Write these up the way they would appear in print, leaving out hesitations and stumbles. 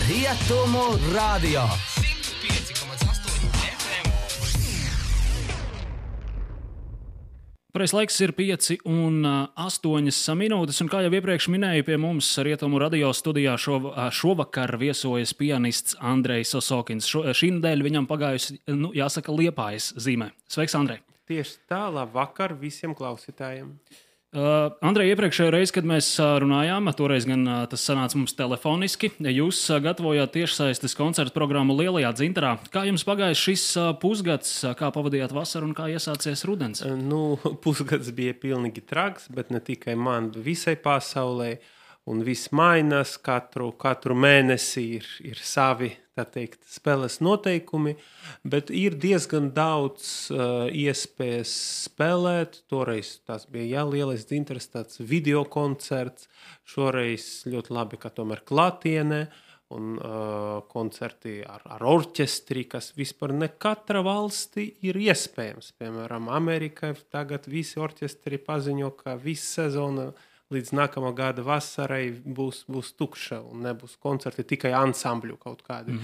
Rietumu radio 105,8 FM. Pareiz laiks ir 5:08 minūtes, un kā jau iepriekš minēju, pie mums Rietumu radio studijā šovakar viesojas pianists Andrejs Osokins. Šī nedēļa viņam pagājusi, jāsaka, Liepājas zīmē. Sveiks, Andrej! Tieši tā, labvakar visiem klausītājiem. Andrej, iepriekšējā reize, kad mēs runājām, toreiz gan tas sanāca mums telefoniski, jūs gatavojāt tiešsaistes koncertu programmu Lielajā Dzintarā. Kā jums pagājis šis pusgads, kā pavadījāt vasaru un kā iesācies rudens? Pusgads bija pilnīgi traks, bet ne tikai man, visai pasaulē. Un viss mainās, katru mēnesi ir savi, tā teikt, spēles noteikumi, bet ir diezgan daudz iespējas spēlēt. Toreiz tas bija Lielais Dzintars, tāds video koncerts, šoreiz ļoti labi, ka tomēr klātienē, un koncerti ar orķestri, kas vispār ne katra valsti ir iespējams. Piemēram, Amerikai tagad visi orķestri paziņo, ka visa sezona līdz nākamā gada vasarai būs tukša un nebūs koncerti, tikai ansambļu kaut kādi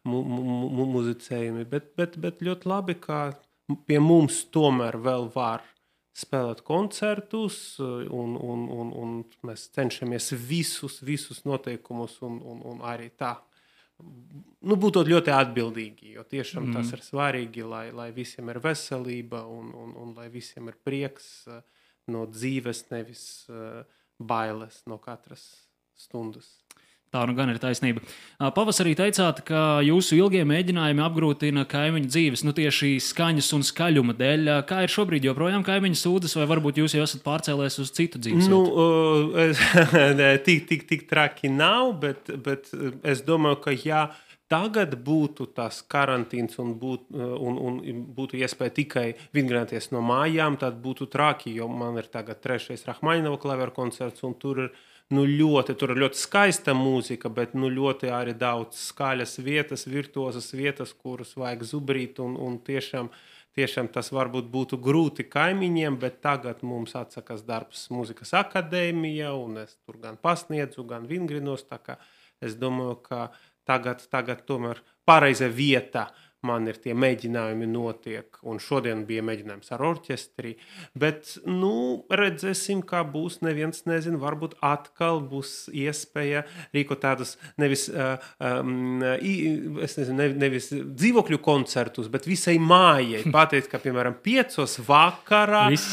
muzicējumi. Bet ļoti labi, ka pie mums tomēr vēl var spēlēt koncertus un mēs cenšamies visus noteikumus un arī tā. Būtu ļoti atbildīgi, jo tiešām tas ir svarīgi, lai visiem ir veselība un lai visiem ir prieks no dzīves, nevis bailes no katras stundas. Tā nu gan ir taisnība. Pavasarī teicāt, ka jūsu ilgie mēģinājumi apgrūtina kaimiņu dzīves, tieši skaņas un skaļuma dēļ. Kā ir šobrīd, joprojām kaimiņu sūdzas, vai varbūt jūs jau esat pārcēlēs uz citu dzīves vietu? Tik traki nav, bet es domāju, ka jā, tagad būtu tas karantīns un būtu iespēja tikai vingrināties no mājām, tad būtu traki, jo man ir tagad 3. Rahmaņinova klaveru koncerts, un tur ir ļoti skaista mūzika, bet ļoti arī daudz skaļas vietas, virtuozas vietas, kuras vajag zubrīt, un tiešām tas varbūt būtu grūti kaimiņiem, bet tagad mums atsakās darbs mūzikas akadēmija, un es tur gan pasniedzu, gan vingrinos, tā kā es domāju, ka Tagad tomēr pareiza vieta man ir tie mēģinājumi notiek, un šodien bija mēģinājums ar orķestri, bet, redzēsim, kā būs, neviens nezin, varbūt atkal būs iespēja rīkot tādus nevis dzīvokļu koncertus, bet visai mājai. Pateikt, ka, piemēram, 5 vakarā, visi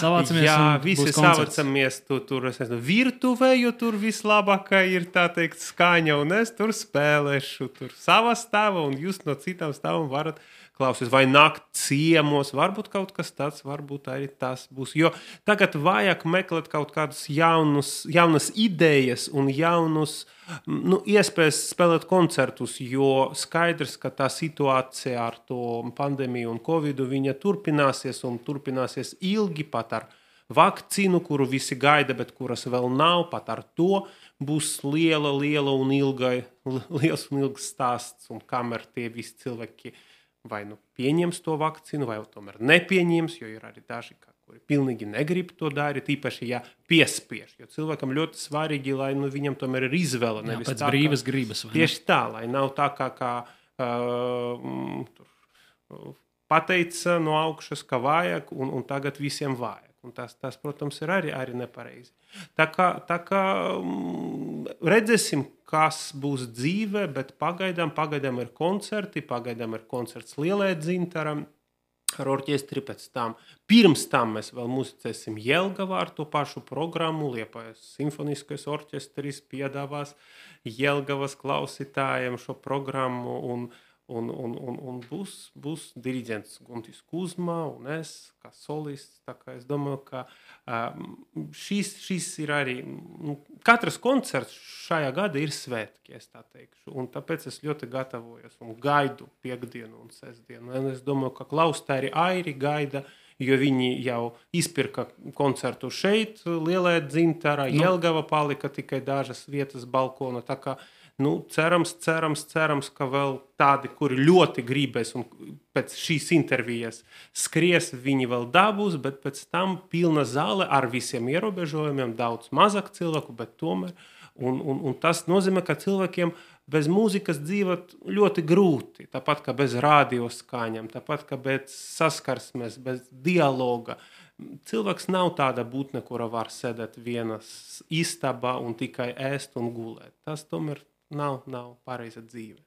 savācamies tur virtuvē, jo tur vislabākā ir, tā teikt, skaņa, un es tur spēlēšu, tur savā stāvā, un jūs no citām stāvam varat klausies, vai nākt ciemos, varbūt kaut kas tāds, varbūt arī tas būs. Jo tagad vajag meklēt kaut kādus jaunas idejas un jaunus iespējas spēlēt koncertus, jo skaidrs, ka tā situācija ar to pandēmiju un covidu, viņa turpināsies ilgi pat ar vakcīnu, kuru visi gaida, bet kuras vēl nav, pat ar to būs liels un ilgs stāsts, un kamēr tie visi cilvēki vai pieņems to vakcīnu, vai tomēr nepieņems, jo ir arī daži, kuri pilnīgi negrib to darīt, īpaši, ja piespiež. Jo cilvēkam ļoti svarīgi, lai viņam tomēr ir izvēle. Pēc brīvas gribas. Tieši tā, lai nav tā, kā pateica no augšas, ka vajag, un tagad visiem vajag. Un tas, protams, ir arī nepareizi. Tā kā redzēsim, kas būs dzīve, bet pagaidām ir koncerti, pagaidām ir koncerts Lielajā Dzintarā ar orķestri, pirms tam mēs vēl muzicēsim Jelgavā ar to pašu programmu, Liepājas simfoniskais orķestris piedāvās Jelgavas klausītājiem šo programmu, un būs diriģents Guntis Kuzma un es, kā solists, tā kā es domāju, ka šis ir arī, katrs koncerts šajā gada ir svētki, es tā teikšu, un tāpēc es ļoti gatavojos un gaidu piekdienu un sestdienu, un es domāju, ka klausītāji arī gaida, jo viņi jau izpirka koncertu šeit, Lielajā Dzintarā, Jelgava palika tikai dažas vietas balkona, tā kā cerams, ka vēl tādi, kuri ļoti gribēs un pēc šīs intervijas skries, viņi vēl dabūs, bet pēc tam pilna zāle ar visiem ierobežojumiem, daudz mazāk cilvēku, bet tomēr. Un tas nozīmē, ka cilvēkiem bez mūzikas dzīvot ļoti grūti. Tāpat kā bez radioskaņām, tāpat kā bez saskarsmes, bez dialoga. Cilvēks nav tāda būtne, kura var sēdēt vienas istabā un tikai ēst un gulēt. Tas tomēr nav pareiza dzīve.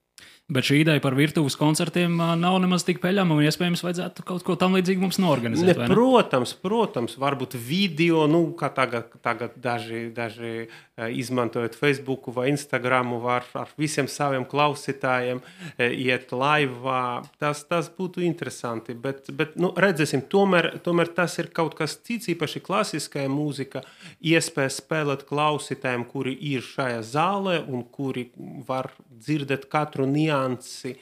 Bet šī ideja par virtuves koncertiem nav nemaz tik peļama, un iespējams vajadzētu kaut ko tam līdzīgi mums norganizēt. Protams, varbūt video, kā tagad daži izmantojot Facebooku vai Instagramu, var ar visiem saviem klausītājiem iet laivā. Tas būtu interesanti, bet redzēsim, tomēr tas ir kaut kas cits, īpaši klasiskajā mūzika, iespēja spēlēt klausītājiem, kuri ir šajā zālē un kuri var dzirdēt katru niansi.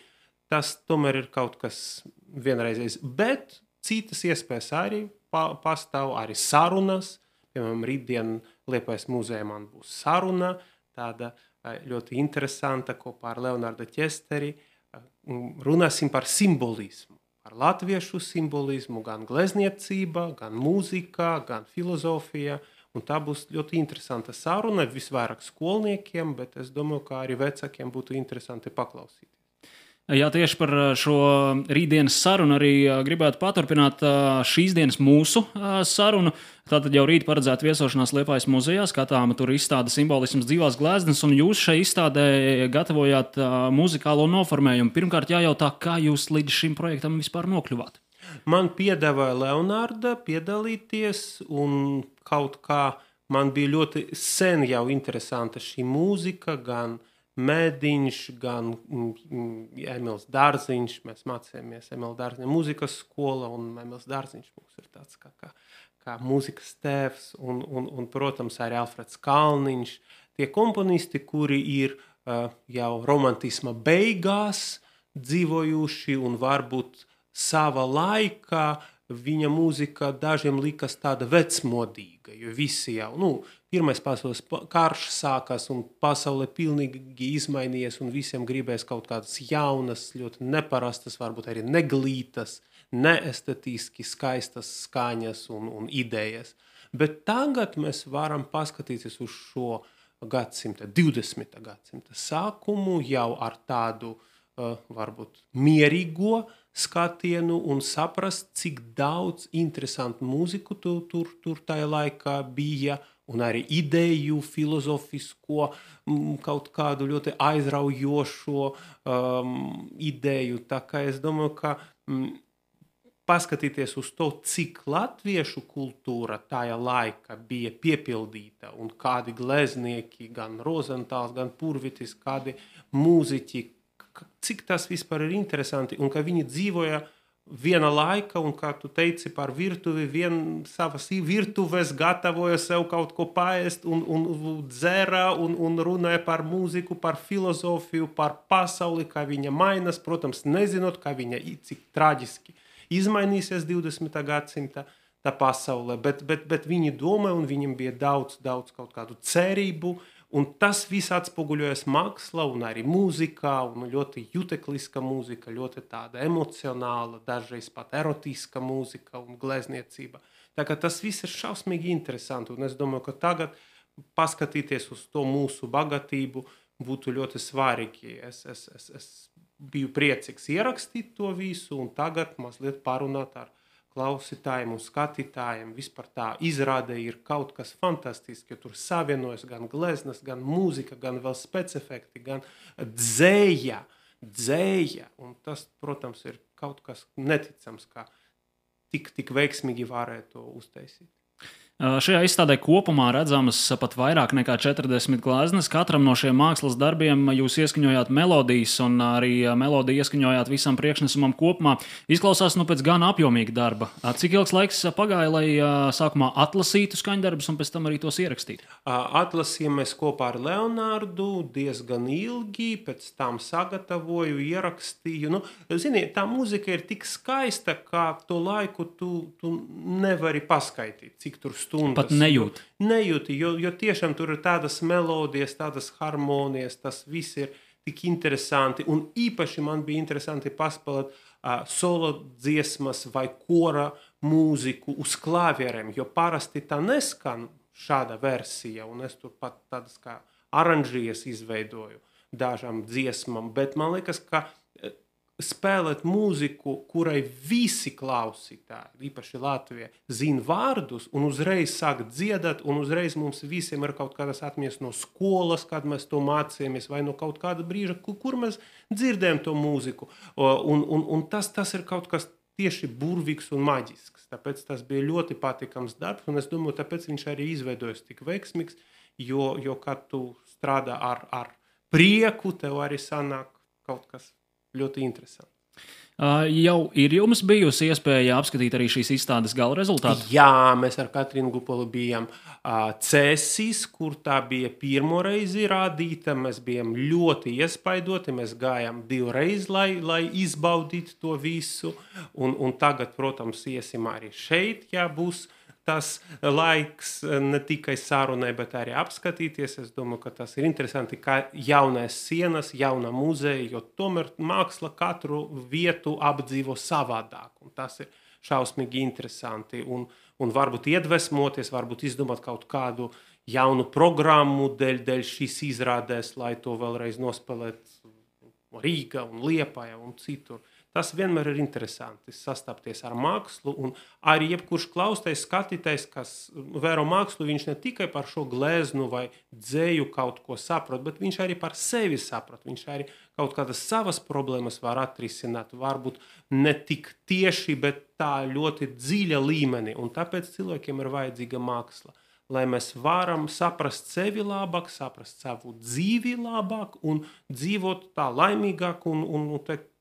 Tas tomēr ir kaut kas vienreizējs, bet citas iespējas arī pastāv, arī sarunas. Piemēram, rītdien Liepājas muzejā man būs saruna, tāda ļoti interesanta kopā ar Leonardu Ķesteri. Runāsim par simbolismu, par latviešu simbolismu, gan glezniecība, gan mūzika, gan filozofija. Un tā būs ļoti interesanta saruna, visvairāk skolniekiem, bet es domāju, ka arī vecākiem būtu interesanti paklausīties. Jā, tieši par šo rītdienas sarunu arī gribētu paturpināt šīs dienas mūsu sarunu. Tātad jau rīt paredzēta viesošanās Liepājas muzejā, skatāma tur izstāde simbolisms dzīvās gleznas, un jūs šai izstādē gatavojāt muzikālo noformējumu. Pirmkārt jājautā, kā jūs līdz šim projektam vispār nokļuvāt? Man piedāvāja Leonarda piedalīties, un kaut kā man bija ļoti sen jau interesanta šī mūzika, gan Mēdiņš, gan Emils Dārziņš. Mēs mācījāmies Emila Dārziņa mūzikas skola, un Emils Dārziņš mums ir tāds kā mūzikas tēvs, un, protams, arī Alfreds Kalniņš. Tie komponisti, kuri ir jau romantisma beigās dzīvojuši un varbūt sava laika, viņa mūzika dažiem likas tāda vecmodīga, jo visi jau, pirmais pasaules karš sākās un pasaule pilnīgi izmainījies un visiem gribēs kaut kādas jaunas, ļoti neparastas, varbūt arī neglītas, neestetiski skaistas skaņas un idejas. Bet tagad mēs varam paskatīties uz šo 20. gadsimta sākumu jau ar tādu varbūt mierīgo skatienu un saprast, cik daudz interesantu mūziku tur tajā laikā bija, un arī ideju, filozofisko, kaut kādu ļoti aizraujošo ideju. Tā kā es domāju, ka paskatīties uz to, cik latviešu kultūra tajā laikā bija piepildīta, un kādi gleznieki, gan Rozentāls, gan Purvitis, kādi mūziķi, cik tas vispār ir interesanti, un ka viņi dzīvoja viena laika, un kā tu teici par virtuvi, savas virtuves gatavoja sev kaut ko paēst, un dzēra, un runāja par mūziku, par filozofiju, par pasauli, kā viņa mainās, protams, nezinot, kā viņa cik traģiski izmainīsies 20. gadsimta tā pasaule, bet viņi domāja, un viņiem bija daudz kaut kādu cerību, un tas viss atspoguļojas mākslā un arī mūzikā, un ļoti jutekliska mūzika, ļoti tāda emocionāla, dažreiz pat erotiska mūzika un glezniecība. Tā kā tas viss ir šausmīgi interesanti, un es domāju, ka tagad paskatīties uz to mūsu bagātību būtu ļoti svarīgi. Es biju priecīgs ierakstīt to visu, un tagad mazliet parunāt ar klausītājiem un skatītājiem. Vispār tā izrāde ir kaut kas fantastisks, jo tur savienojas gan gleznas, gan mūzika, gan vēl specifekti, gan dzēja. Un tas, protams, ir kaut kas neticams, kā tik veiksmīgi varētu to uztaisīt. Šajā izstādē kopumā redzamas pat vairāk nekā 40 gleznas. Katram no šiem mākslas darbiem jūs ieskaņojāt melodijas, un arī melodiju ieskaņojāt visam priekšnesumam kopumā. Izklausās pēc gan apjomīga darba. Cik ilgs laiks pagāja, lai sākumā atlasītu skaņdarbus un pēc tam arī tos ierakstītu? Atlasījām mēs kopā ar Leonardu diezgan ilgi, pēc tam sagatavoju, ierakstīju. Zini, tā mūzika ir tik skaista, ka to laiku tu nevari paskaitīt, cik tur stundas. Pat nejūti. Nejūti, jo tiešām tur ir tādas melodijas, tādas harmonijas, tas viss ir tik interesanti. Un īpaši man bija interesanti paspēlēt solo dziesmas vai kora mūziku uz klavierēm, jo parasti tā neskan šāda versija, un es tur pat tādas kā aranžijas izveidoju. dažām dziesmām, bet man liekas, ka spēlēt mūziku, kurai visi klausītāji, īpaši Latvijā, zina vārdus un uzreiz sāk dziedāt, un uzreiz mums visiem ir kaut kādas atmiņas no skolas, kad mēs to mācījāmies, vai no kaut kāda brīža, kur mēs dzirdējam to mūziku. Un tas ir kaut kas tieši burvīgs un maģisks. Tāpēc tas bija ļoti patīkams darbs, un es domāju, tāpēc viņš arī izveidojas tik veiksmīgs, jo kad tu strādā ar prieku, tev arī sanāk kaut kas ļoti interesanti. Jau ir jums bijusi iespēja apskatīt arī šīs izstādes gala rezultātu? Jā, mēs ar Katrīnu Gupolu bijām Cēsīs, kur tā bija pirmo reizi rādīta. Mēs bijām ļoti iespaidoti, mēs gājām 2 reizes, lai izbaudītu to visu. Un tagad, protams, iesim arī šeit, ja būs tas laiks ne tikai sarunai, bet arī apskatīties. Es domāju, ka tas ir interesanti, kā jaunais sienas, jauna muzeja, jo tomēr māksla katru vietu apdzīvo savādāk. Un tas ir šausmīgi interesanti. Un varbūt iedvesmoties, varbūt izdomāt kaut kādu jaunu programmu dēļ šīs izrādēs, lai to vēlreiz nospēlēt Rīga un Liepaja un citur. Tas vienmēr ir interesanti sastapties ar mākslu, un arī jebkurš klaustais, skatītais, kas vēro mākslu, viņš ne tikai par šo gleznu vai dzēju kaut ko saprot, bet viņš arī par sevi saprot. Viņš arī kaut kādas savas problēmas var atrisināt, varbūt ne tik tieši, bet tā ļoti dziļa līmenī, un tāpēc cilvēkiem ir vajadzīga māksla, lai mēs varam saprast sevi labāk, saprast savu dzīvi labāk un dzīvot tā laimīgāk un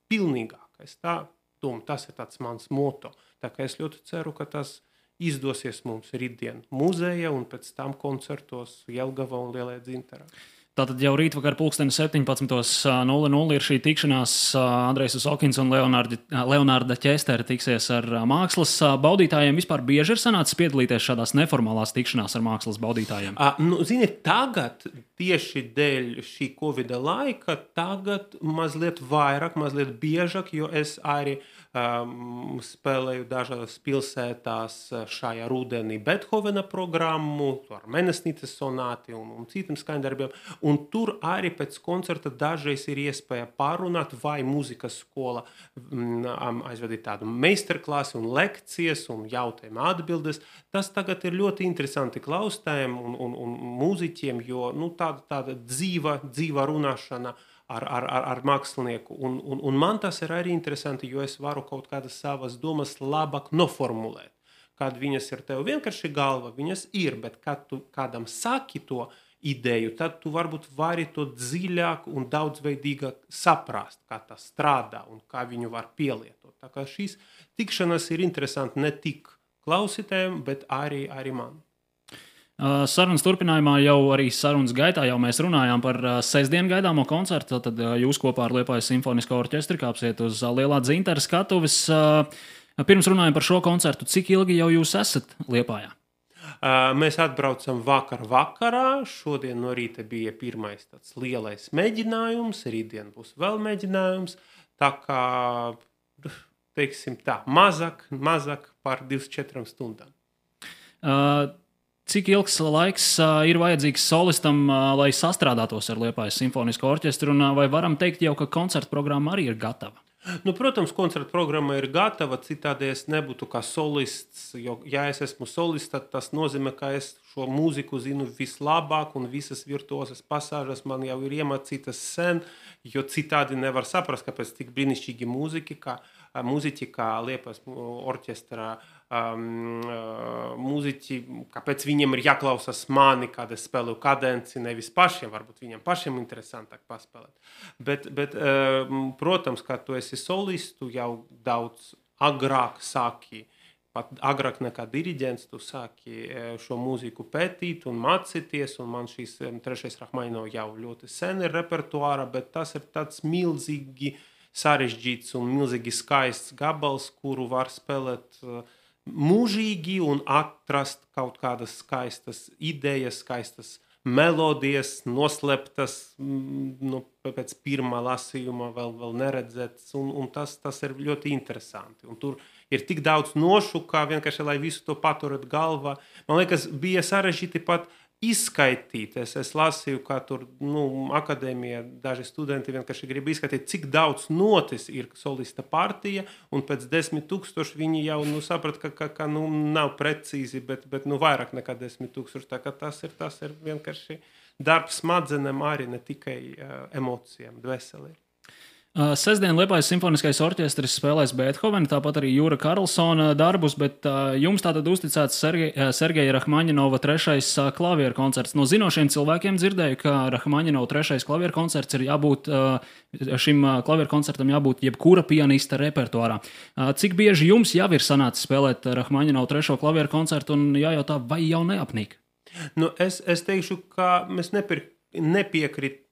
pilnīgāk. Tas ir tāds mans moto. Tā kā es ļoti ceru, ka tas izdosies mums rītdien muzeja un pēc tam koncertos Jelgavā un Lielajā Dzintarā. Tātad jau rītvakar 17:00 ir šī tikšanās. Andrejs Osokins un Leonārda Ķestera tiksies ar mākslas baudītājiem. Vispār bieži ir sanācis piedalīties šādās neformālās tikšanās ar mākslas baudītājiem? Ziniet, tagad tieši dēļ šī Covida laika, tagad mazliet vairāk, mazliet biežāk, jo es arī spēlēju dažās pilsētās šajā rudenī Bethovena programmu, ar Menesnītes sonāti un citiem skaņdarbiem. Un tur arī pēc koncerta dažreiz ir iespēja pārunāt, vai mūzikas skola aizvedīt tādu meistarklasi un lekcijas un jautājumu atbildes. Tas tagad ir ļoti interesanti klausītājiem un mūziķiem, jo tāda dzīva runāšana ar mākslinieku. Un man tas ir arī interesanti, jo es varu kaut kādas savas domas labāk noformulēt. Kad viņas ir tev vienkārši galva, viņas ir, bet kad tu kādam saki to ideju, tad tu varbūt vari to dziļāk un daudzveidīgāk saprast, kā tas strādā un kā viņu var pielietot. Tā kā šīs tikšanas ir interesanti ne tik klausītājiem, bet arī man. Sarunas turpinājumā jau arī sarunas gaitā jau mēs runājām par sestdienu gaidāmo koncertu. Tad jūs kopā ar Liepājas simfonisko orķestri kāpsiet uz Lielā Dzintara skatuves. Pirms runājam par šo koncertu, cik ilgi jau jūs esat Liepājā? Mēs atbraucam vakarā. Šodien no rīta bija pirmais tāds lielais mēģinājums, rītdien būs vēl mēģinājums. Tā kā, teiksim tā, mazāk par 24 stundām. Cik ilgs laiks ir vajadzīgs solistam, lai sastrādātos ar Liepājas simfonisko orķestru, un vai varam teikt jau, ka koncerta programma arī ir gatava? Protams, koncerta programma ir gatava, citādi es nebūtu kā solists, jo, ja es esmu solists, tad tas nozīmē, ka es šo mūziku zinu vislabāk un visas virtuozas pasāžas man jau ir iemācītas sen, jo citādi nevar saprast, kāpēc tik brīnišķīgi mūziķi, kā Liepājas orķestrā mūziķi, kāpēc viņiem ir jāklausās mani, kad es spēlēju kadenci, nevis pašiem, varbūt viņiem pašiem interesantāk paspēlēt. Bet protams, kad tu esi solistu, jau daudz agrāk sāki, pat agrāk nekā diriģents, tu sāki šo mūziku pētīt un mācīties, un man šīs trešais Rahmaninov jau ļoti sen ir repertuāra, bet tas ir tāds milzīgi sarežģīts un milzīgi skaists gabals, kuru var spēlēt mūžīgi un atrast kaut kādas skaistas idejas, skaistas melodijas, noslēptas, pēc pirmā lasījuma vēl neredzētas, un tas ir ļoti interesanti. Un tur ir tik daudz nošu, kā vienkārši, lai visu to paturēt galvā. Man liekas, bija sarežģīti pat izskaitīt. Es lasīju, kā tur akadēmijā daži studenti vienkārši grib izskaitīt, cik daudz notis ir solista partija, un pēc 10,000 viņi jau saprat, ka nav precīzi, bet vairāk nekā 10,000. Tā kā tas ir vienkārši darbs smadzenēm, arī ne tikai emocijām, dvēselē. Sestdien Liepājas simfoniskais orķestris spēlēs Beethovena, tāpat arī Jūra Karlsona darbus, bet jums tātad uzticēts Sergeja Rahmaņinova 3. klavieru koncerts. No zinošiem cilvēkiem dzirdēju, ka Rahmaņinova 3. klavieru koncerts ir jābūt, šim klavieru koncertam jābūt jebkura pianista repertuārā. Cik bieži jums jau ir sanācis spēlēt Rahmaņinova 3. klavieru koncertu un jājautā, vai jau neapnīk? Es teikšu, ka mēs nepiekritīšu,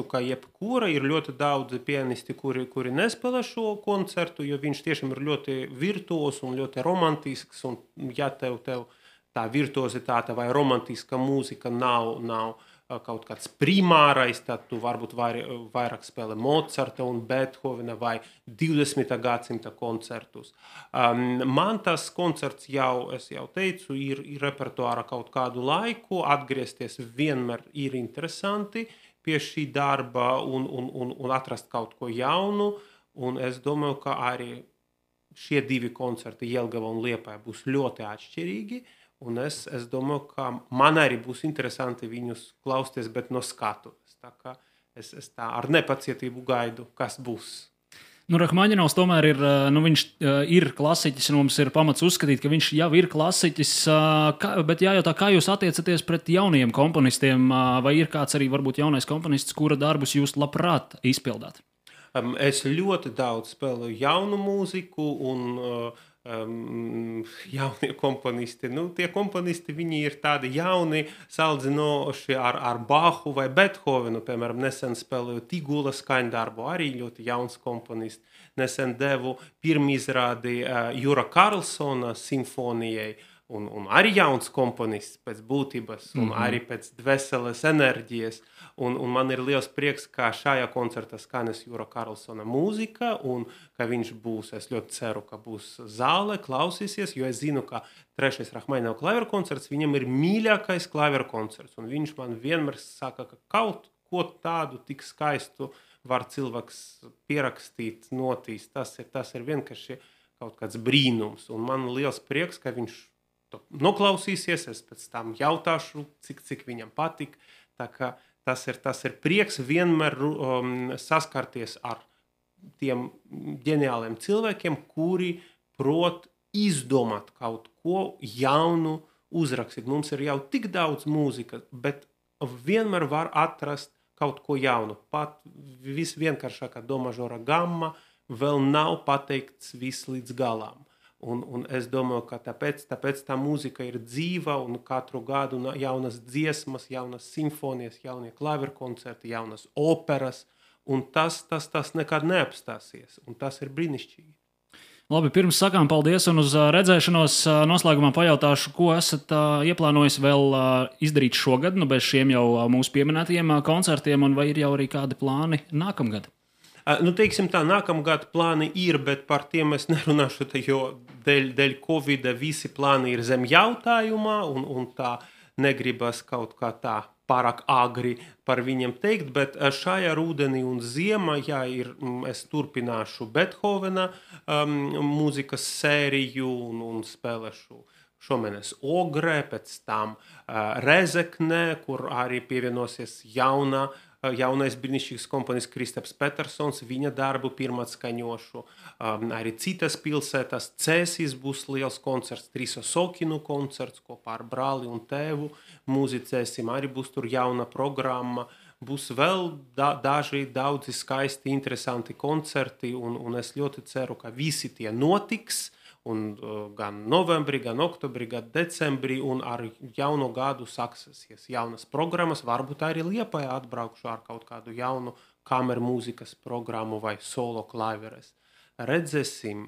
ka jebkura ir ļoti daudz pianisti, kuri nespēlē šo koncertu, jo viņš tiešām ir ļoti virtuos un ļoti romantisks, un ja tev tā virtuozitāte vai romantiska mūzika nav kaut kāds primārais, tad tu varbūt vairāk spēlē Mozarta un Beethovena vai 20. gadsimta koncertus. Man tas koncerts es jau teicu, ir repertuāra kaut kādu laiku, atgriezties vienmēr ir interesanti pie šī darba un atrast kaut ko jaunu, un es domāju, ka arī šie 2 koncerti Jelgava un Liepāja būs ļoti atšķirīgi, un es domāju, ka man arī būs interesanti viņus klausties, bet no skatuves. Tā kā es tā ar nepacietību gaidu, kas būs. Rahmaņinovs tomēr viņš ir klasiķis, un mums ir pamats uzskatīt, ka viņš jau ir klasiķis, bet jājautā, kā jūs attiecaties pret jauniem komponistiem, vai ir kāds arī varbūt jaunais komponists, kura darbus jūs labprāt izpildāt? Es ļoti daudz spēlēju jaunu mūziku un jaunie komponisti. Tie komponisti, viņi ir tādi jauni, salīdzinoši ar Bahu vai Beethovenu. Piemēram, nesen spēlēju Tigula skaņdarbu, arī ļoti jauns komponists. Nesen devu pirmizrādi Jūra Karlsona simfonijai, un arī jauns komponists pēc būtības, un arī pēc dvēseles enerģijas. Un man ir liels prieks, ka šajā koncertā skanēs Jūra Karlsona mūzika, un ka viņš būs, es ļoti ceru, ka būs zāle, klausīsies, jo es zinu, ka 3. Rahmaņinova klavieru koncerts viņam ir mīļākais klavieru koncerts, un viņš man vienmēr saka, ka kaut ko tādu tik skaistu var cilvēks pierakstīt, notīs. Tas ir vienkārši kaut kāds brīnums, un man liels prieks, ka viņš to noklausīsies, es pēc tam jautāšu, cik viņam patik, tā kā tas ir prieks vienmēr saskarties ar tiem ģeniāliem cilvēkiem, kuri prot izdomāt kaut ko jaunu uzrakstīt. Mums ir jau tik daudz mūzikas, bet vienmēr var atrast kaut ko jaunu. Pat visvienkāršākā do mažora gamma vēl nav pateikts viss līdz galām. Un es domāju, ka tāpēc tā mūzika ir dzīva, un katru gadu jaunas dziesmas, jaunas simfonijas, jaunie klavieru koncerti, jaunas operas, un tas nekad neapstāsies, un tas ir brīnišķīgi. Labi, pirms sakām paldies un uz redzēšanos, noslēgumā pajautāšu, ko esat ieplānojis vēl izdarīt šogad, bez šiem jau mūsu pieminētajiem koncertiem, un vai ir jau arī kādi plāni nākamgad? Teiksim tā, nākamgad plāni ir, bet par tiem es nerunāšu, jo dēļ Covida visi plāni ir zem jautājumā, un tā negribas kaut kā tā pārāk agri par viņiem teikt, bet šajā rudenī un ziemā, es turpināšu Beethovena mūzikas sēriju un spēlēšu šomēnes Ogrē, pēc tam Rezeknē, kur arī pievienosies jaunais brīnišķīgs komponists Kristaps Petersons, viņa darbu pirmatskaņošu. Arī citas pilsētas, Cēsīs būs liels koncerts, Triso Sokinu koncerts kopā ar brāli un tēvu. Muzicēsim, arī būs tur jauna programma. Būs vēl daudzi skaisti, interesanti koncerti, un es ļoti ceru, ka visi tie notiks. Un gan novembrī, gan oktobrī, gan decembrī, un ar jauno gadu sāksies jaunas programmas. Varbūt arī Liepājā atbraukšu ar kaut kādu jaunu kameru mūzikas programmu vai solo klaveres. Redzēsim.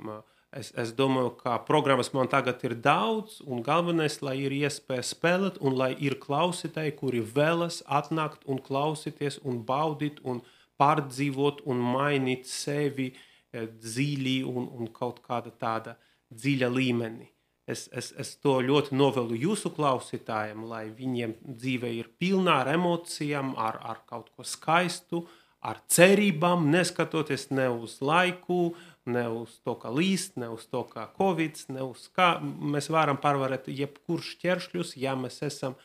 Es domāju, ka programmas man tagad ir daudz, un galvenais, lai ir iespēja spēlēt, un lai ir klausītāji, kuri vēlas atnākt un klausīties, un baudīt, un pārdzīvot, un mainīt sevi dziļi un kaut kāda tāda dziļa līmeni. Es to ļoti novēlu jūsu klausītājiem, lai viņiem dzīve ir pilnā ar emocijām, ar kaut ko skaistu, ar cerībām, neskatoties ne uz laiku, ne uz to, kā līst, ne uz to, kā Covid, ne uz kā mēs varam pārvarēt jebkurš ķeršļus, ja mēs esam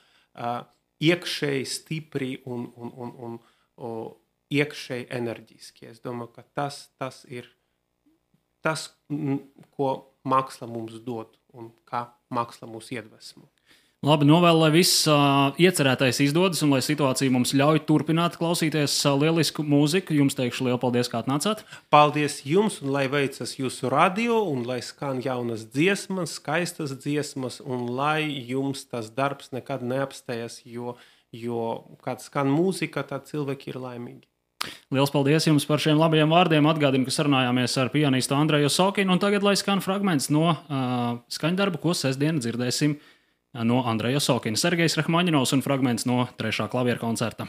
iekšēji stipri un iekšēji enerģiski. Es domāju, ka tas ir tas, ko māksla mums dod un kā māksla mūs iedvesmo. Labi, novēlu, lai viss iecerētais izdodas un lai situācija mums ļauj turpināt klausīties lielisku mūziku. Jums teikšu lielu paldies, kā atnācāt. Paldies jums un lai veicas jūsu radio un lai skan jaunas dziesmas, skaistas dziesmas un lai jums tas darbs nekad neapstājas, jo kad skan mūzika, tad cilvēki ir laimīgi. Liels paldies jums par šiem labajiem vārdiem. Atgādinu, ka sarunājāmies ar pianistu Andreju Osokinu, un tagad lai skan fragments no skaņdarba, ko sestdien dzirdēsim no Andreja Osokina. Sergejs Rahmaņinovs un fragments no 3. klavieru koncerta.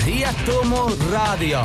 Rietumu radio.